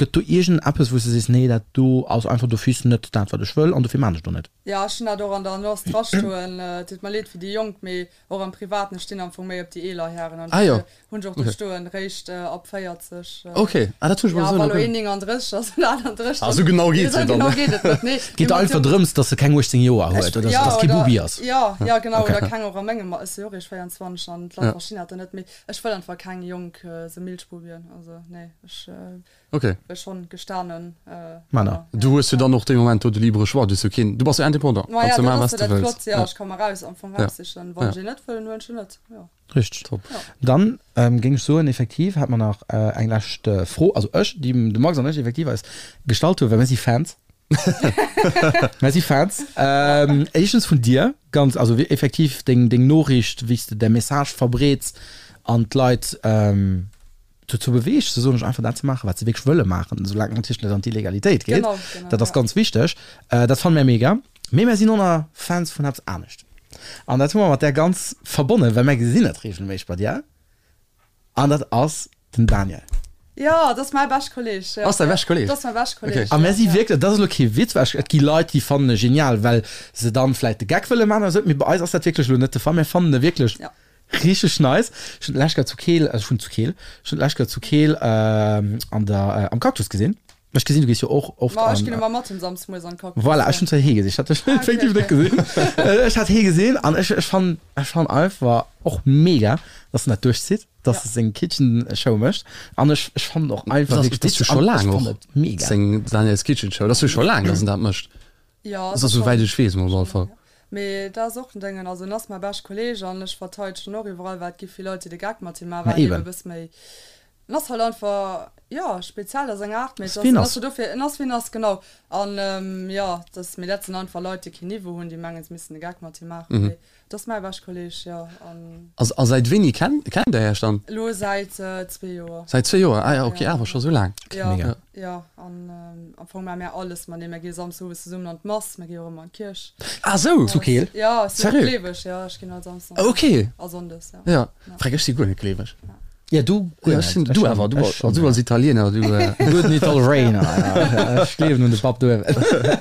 gëtt do iergend eppes wou s de sees, nee dat do ass einfach d'office net dat wat ech wëll an dofir maan ech do net? Jo, ech hunn dat och an der Annonce drastoen. Et deet mer leed fir déi Jonk, mee och am Privaten, ech stinn am Fong méi op déi eeler Hären an Ah jo. dofir hunn ech och do stoen, réischt ab 40. Ok, ah dat hunn ech mol esou nach nach guer. Ja, wa lo een 39 ass oder 38, Ah, esou genau geet esou et dann genau net. geet et net, nee. Et geet einfach drëms, dass e keng 18 Joer huet oder Ja, dass kee oder, Bubi ass. ja, ja genau, Ok. oder keng och a mengem, ech si jo och eréischt 24 an d'Leit verstinn dat dann net, mee ech wëll einfach keng jonk esou Milchbubien, also nee, ech. Ok. Schon gestanen Männer. Du hues jo dann och dee Moment do de libre Choix, du hues jo keen, du bass jo indépendant, Ma kanns ja, jo dat maachen ass wat jo de dat wëlls. Flott, jo, ech ka mer raus am Fong raussichen, wann ech een net wëll, dann huelen ech en net, jo. Richteg. Top. Dann géing ech soen, effektiv hat mer nach eng lescht Fro, also ech, déi de Max an ech effektiv eis gestallt hunn, well mir si Fans. Mir si Fans. Éischtens vun dir, ganz, also effektiv deng deng Noriicht, wéi s de däi Message verbreets an d'Leit, dozou beweegt, se soen ech, einfach dat ze maachen, wat se wierklech wëlle maachen, soulaang et natierlech net an d'Illegalitéit geet. Genau, genau, Dat ass ja. ganz wichteg. Dat fanne mär mega. Mee mär sinn och nach Fans vun eppes anescht. An dat hu mer mat där ganz verbonnen, well mär gesinn et reegelméisseg bei dir. An dat ass den Daniel. Jo, dat ass mäi bescht Kolleeg. Ja. Ass däi bescht Kolleeg? Dat ass mäi bescht Kolleeg. Okay. A mär si wierklech, dat ass elo kee Witz, well ech, et gi Leit, déi fannen e genial, well se dann vläicht de Geck wëlle maachen oder esou. Mee bei eis ass dat wierklech elo net de Fall. Mär fannen e wierklech Ja. Richteg nice. Ech hun d'lescht Kéier zu Keel, also ech wunn zu Keel, ech hun d'lescht Kéier zu Keel an der, am Cactus gesinn. Ech gesinn, du gees jo och oft Ma ech an. ginn ëmmer mat him samsdes moies an den Cactus. Voilà, ech hun zwar hee gesinn, ech hat dech Ah, okay, effektiv net okay. gesinn. Ech hat hee gesinn an ech, ech fannen, ech fannen einfach och mega, dass en dat duerchzitt, dass Ja. e seng Kitchen Show mécht an ech, ech fannen och einfach Dat wierklech ass jo witzeg scho an ech laang fannen och et mega. seng Daniel's Kitchen Show, dat ass jo scho laang, dass en dat mécht. Jo, Also souwäit ech weess mol op alle Fall. Mee dat ass och en Déngen, also en ass mäi bescht Kolleg an ech verteidegen och iwwerall, well et gi vill Leit déi de Geck mat him maachen, Ma well en eben eben. e bësse méi, en ass halt einfach, jo, speziell a senger Aart, mee et Ass ass, wien en ass ass. jo dofir, en ass wien ass, genau. An jo, dat, mee dat sinn einfach Leit déi keen Niveau hunn, déi mengen se missten de Geck mat him maachen, mee Et ass mäi bescht Kolleg, jo. An. A säit wéini kennt der Iech dann? Elo säit zwee Joer. Säit zwee Joer, ah ja, ok, awer scho sou laang. Jo, Mega. jo. An am Fong maache mär alles matenee. Mär gi Samsdes owes zesummen an d'Mass, mär gi och ëmmer an d'Kierch. Ah sou! Zu Keel? Jo, ech sinn och Sérieux? gleeweg, jo. Ech ginn all Samsdes an d'Mass. Ok. A Sonndes, jo. Jo, Fränk, ech si guer net gleeweg. Ja, du guer Ja, ech sinn, net. du awer, du Ech schon, du als Italiener, du. Gudden Italiener, ja. Ech gleewen un de Papp do.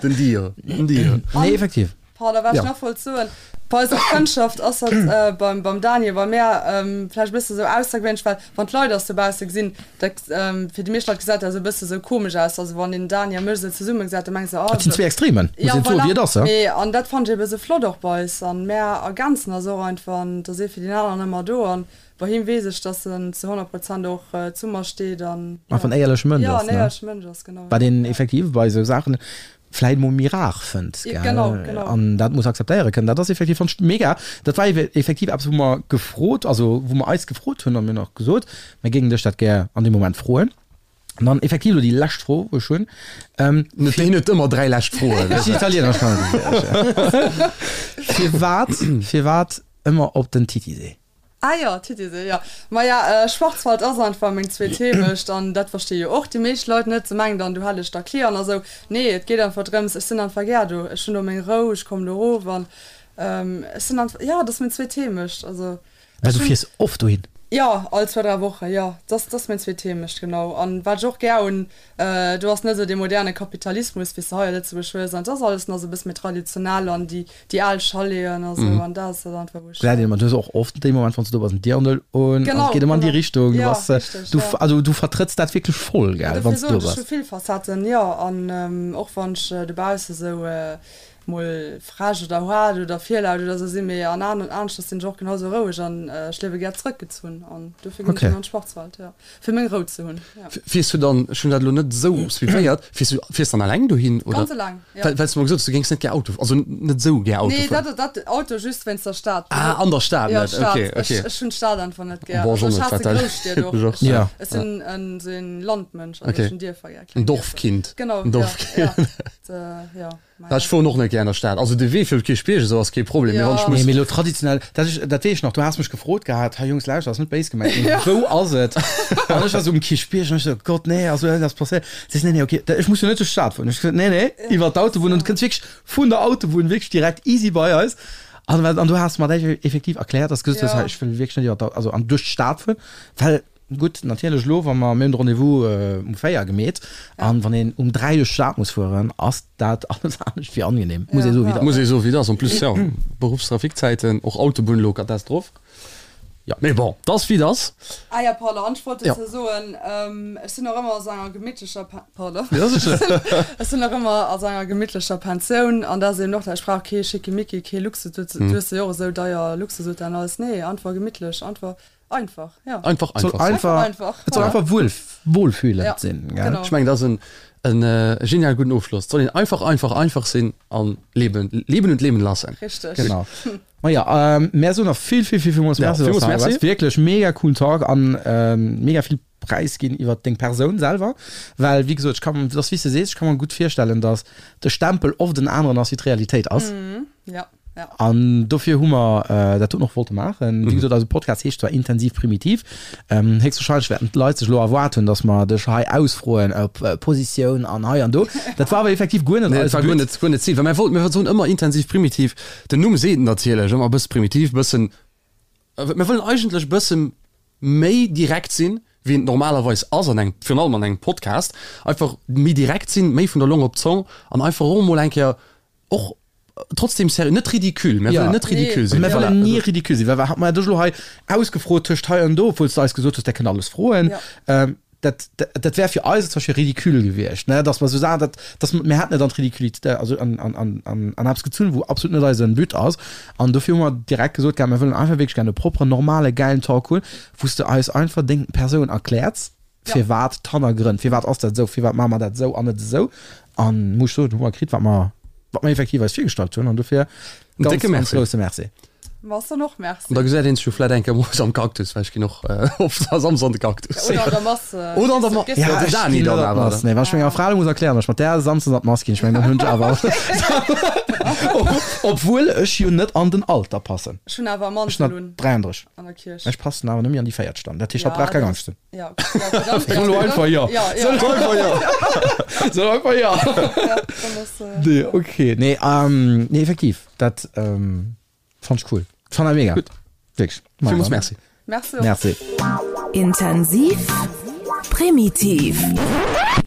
Den Dio, den Dio. Nee, effektiv. Pardon, wat ech Ja. nach wollt soen, Bei eiser Frëndschaft ass dat äh, beim, beim Daniel, bei mär ähm, vläicht e bësse sou aussergewéinlech, well wann d'Leit eis dobausse gesinn, da, ähm, fir déi meescht Leit gesäit dat esou e bësse sou komesch aus. Also wann een den Dani a mech esou zesumme gesäit, da mengen se, oh, Dat sinn zwee Extremen, muss Ja, een soen, voilà. wéi et ass, ja. Mee, an dat fannen ech ebe sou flott och bei eis. An mär ergänzen eis och einfach an et ass ee fir deen aneren ëmmer do. An bei him weess ech, dass en zu 100 Prozent och zu mer steet an, ja. Einfach en éierleche Mënsch Ja, ass, en ne? éierleche Mënsch ass, genau. Wat een Ja. effektiv bei esou Saachen vläit mol méi rar fënnt, Ja, gell? genau, genau. An dat muss akzeptéiere kënnen. Dat ass effektiv, fand ech mega. Dat war effektiv eppes, wou mer gefrot, also wou mer eis gefrot hunn a mir hunn och gesot, mir géingen dech dat gär an deem Moment froen. An dann effektiv elo déi lescht Fro, wou ech hunn. Ähm, Net, hien huet ëmmer dräi lescht Froen. Ech sinn Italiener, ech kann dat net. Firwat, firwat ëmmer op den Titisee? Ah jo, Titisee, jo. Maja, Schwarzwald ass einfach meng zweet Heemecht an dat versti jo och déi meescht Leit net. Se mengen dann, do hätt ech da Clienten a sou. Nee, et geet einfach drëms, ech sinn einfach gär do. Ech hunn do meng Rou, ech kommen do erof an ech sinn einfach, jo, dat ass meng zweet Heemecht. Also Well ech du hunn. fiers oft dohin? Jo, all zwou, dräi Woche, jo. Dat ass meng zweet Heemecht, genau. An wat ech och gär hunn, do ass net esou dee moderne Kapitalismus, wéi s de hei a Lëtzebuerg hues. An et ass alles nach esou e bësse méi traditionell an déi déi al Chaleten a sou. An dat ass dat einfach, wou ech. Gesäit een ëmmer, du hues och oft dee Moment, wann s du do bass, en Dirndl un. An Genau, et geet ëmmer an déi genau. Richtung. Du Jo, bass, richteg, du, jo. also du vertrëtts dat wierklech voll, Ja, gell, dofir wann s du soen do ech, ech bass. hu vill Facetten, jo. An och wann ech dobausse sou mol frech oder haart oder virlaut oder sou sinn, mee an aneschters sinn ech och genau sou roueg an ech liewe gär zrëckgezunn an dofir ginn ech Okay. an d'Schwarzwald, jo, fir meng Rou ze hunn, jo. Fiers du dann, ech hunn dat elo net esou suivéiert, fiers du, fiers dann alleng dohin oder? Ganz eleng, jo. Well, well s du mer gesot hues, du géings net gär Auto, also net esou gär Auto Nee, fueren. dat, dat Auto just wéinst der Stad. Ah, an der Stad Jo, net, d'Stad. okay, Ech, okay. ech hunn d'Stad einfach net gär. Bon, Also ech ech och net, haasse wat dat Grousstied och. ech och. Ech, Ja. ech sinn en, sou en Landmënsch, also Okay. ech hunn Dierfer gär, En kleng Dierfer. Dorfkind. Genau, En jo, Dorfkind. jo. Dat, jo. Ja, ech fueren och net gär an der Stad. Also de Wee fir op d'Kierchbierg esou ass kee Problem, mee wann ech Nee, muss. mee elo traditionell, dat ech, dat weess ech nach, du has mech gefrot gehat, hei Jungs, lauschter, ass net béis gemengt, mee wou ass et? An ech war sou um Kierchbierg an ech sou, Gott, nee, also dat ass passéiert. Si sou, nee, nee, okay, ech muss jo net duerch d'Stad fueren. Ech gesot, nee, nee, iwwer d'Autobunn an du kënns wierklech vun der Autobunn wierklech direkt easy bei eis. An, an du has mer dat effektiv erkläert, dass du gesot hues, hei, ech wëll wierklech net iwwer d'Au-, also an duerch d'Stad fueren, well. Gutt, natierlech elo, wa mer, mir hunn de Rendez-vous um 4 gemeet, an wann een um 3 duerch d'Stad muss fueren, ass dat alles anescht wéi angenehm, muss ee soen, wéi et ass. Muss ee soen, wéi et ass. En plus, jo, Beruffstrafikzäiten, och Autobunn elo Katastroph. Jo. Mee bon, 't ass wéi et ass. Ah jo, pardon, an ech wollt dozou soen, ech sinn och ëmmer a sou enger gemittlecher, pardon, ech sinn och ëmmer a sou enger gemittlecher Pensioun, an dat ass eben och dat, ech brauch kee Schickimicki, kee Luxus, du hues jo och esou deier Luxushotellen an alles, nee, einfach gemittlech, einfach. Einfach, ja. Einfach, einfach. Soll einfach, einfach, et soll einfach wuel, wohlfühlend ja, sinn. Gell? Genau. Ech mengen, dat ass en, en äh, genial gudden Ofschloss. Et soll een einfach, einfach, einfach sinn an leben, leben und leben lassen. Richteg. Genau. Ma ja, ähm, mär soen nach vill, vill, vill, villmools Ja, Merci, dass villmools du hei Merci. waars. Wierklech mega coolen Talk an ähm, mega vill Präis ginn iwwer deng Persoun selwer. Well, wéi gesot, ech kann, dat ass wéi s de sees, ech ka mer gutt virstellen, dass de Stempel oft en aneren ass, wéi d'Realitéit ass. Mhm, ja. Ja. An dofir hu mer dat doten och wollte maachen. Wéi gesot, eise Podcast heescht zwar Intensiv Primitiv. Héchstwahrscheinlech wäerten d'Leit sech elo erwaart hunn, datt mer dech hei ausfroen op Positioun an hei an do. Dat war awer effektiv guer net Nee, dat eise war guer But. net, guer net d'Zil. Well mir wollten, mir soen ëmmer intensiv primitiv. Den Numm seet et natierlech, ëmmer e bësse primitiv, bëssen, mir wëllen eigentlech e bësse méi direkt sinn, wéi een et normalerweis ass an engem, virun allem an engem Podcast. Einfach méi direkt sinn, méi vun der Long op d'Zong an einfach och emol eng Kéier och trotzdem sérieux, net ridicule, mir wëllen net ridicule sinn. Mir wëllen ni ridicule sinn, well wat hat mer dech elo hei ausgefrot tëscht hei an do, obwuel s de eis gesot hues, där kënnt alles froen. Dat, dat wär fir eis zum Beispill ridicule gewiescht, ne, dass mer esou Saachen, dat, dass mir hätten et an d'Ridiculité, also an, an, an, an, an eppes gezunn, wou absolut net eise But ass. An dofir hu mer direkt gesot gehat, mir wëllen einfach wierklech gär e propperen, normale, gäilen Talk hunn, wou s de eis einfach deng Persoun erkläerts. Firwat d'Hannergrënn, firwat ass dat esou, firwat maache mer dat esou an net esou? An muss ech soen, hu mer kritt, wat mer, wat mer effektiv eis virgestallt hunn. An dofir En ganz, décke ganz Merci. grousse Merci. Mer soen och Merci. An da gesäit een sech jo vläit eng Kéier moies am Cactus, well ech ginn och oft a Samsdes an de Cactus. Oder an der Mass. Oder an der Mass. Gehst du- Ja, den ech Dani ginn dann net an awer, d'Mass. Nee, wann ech menger Fra elo muss erklären, datt ech mat där Samsdes an d'Mass ginn, ech mengen, dann hunn ech awer, obwuel ech jo net an den Alter passen. Ech hunn awer e Ech Mantel sinn un 33. an der Kierch. Ech passen awer nëmme an déi véiert Stand. Dat heescht, hatt Ja, brauch keng dat Angscht hunn. Ja, okay, ja, okay, dann, Soll elo einfach jo. Ja, ja. Soll einfach jo. Soll einfach jo. Ja, dann ass, äh, Nee, okay. Nee, ähm, nee, effektiv. Dat ähm, fand ich cool. Fand ich mega. Gutt. Wirklich. Villmools Merci. Merci. Merci. Intensiv, primitiv.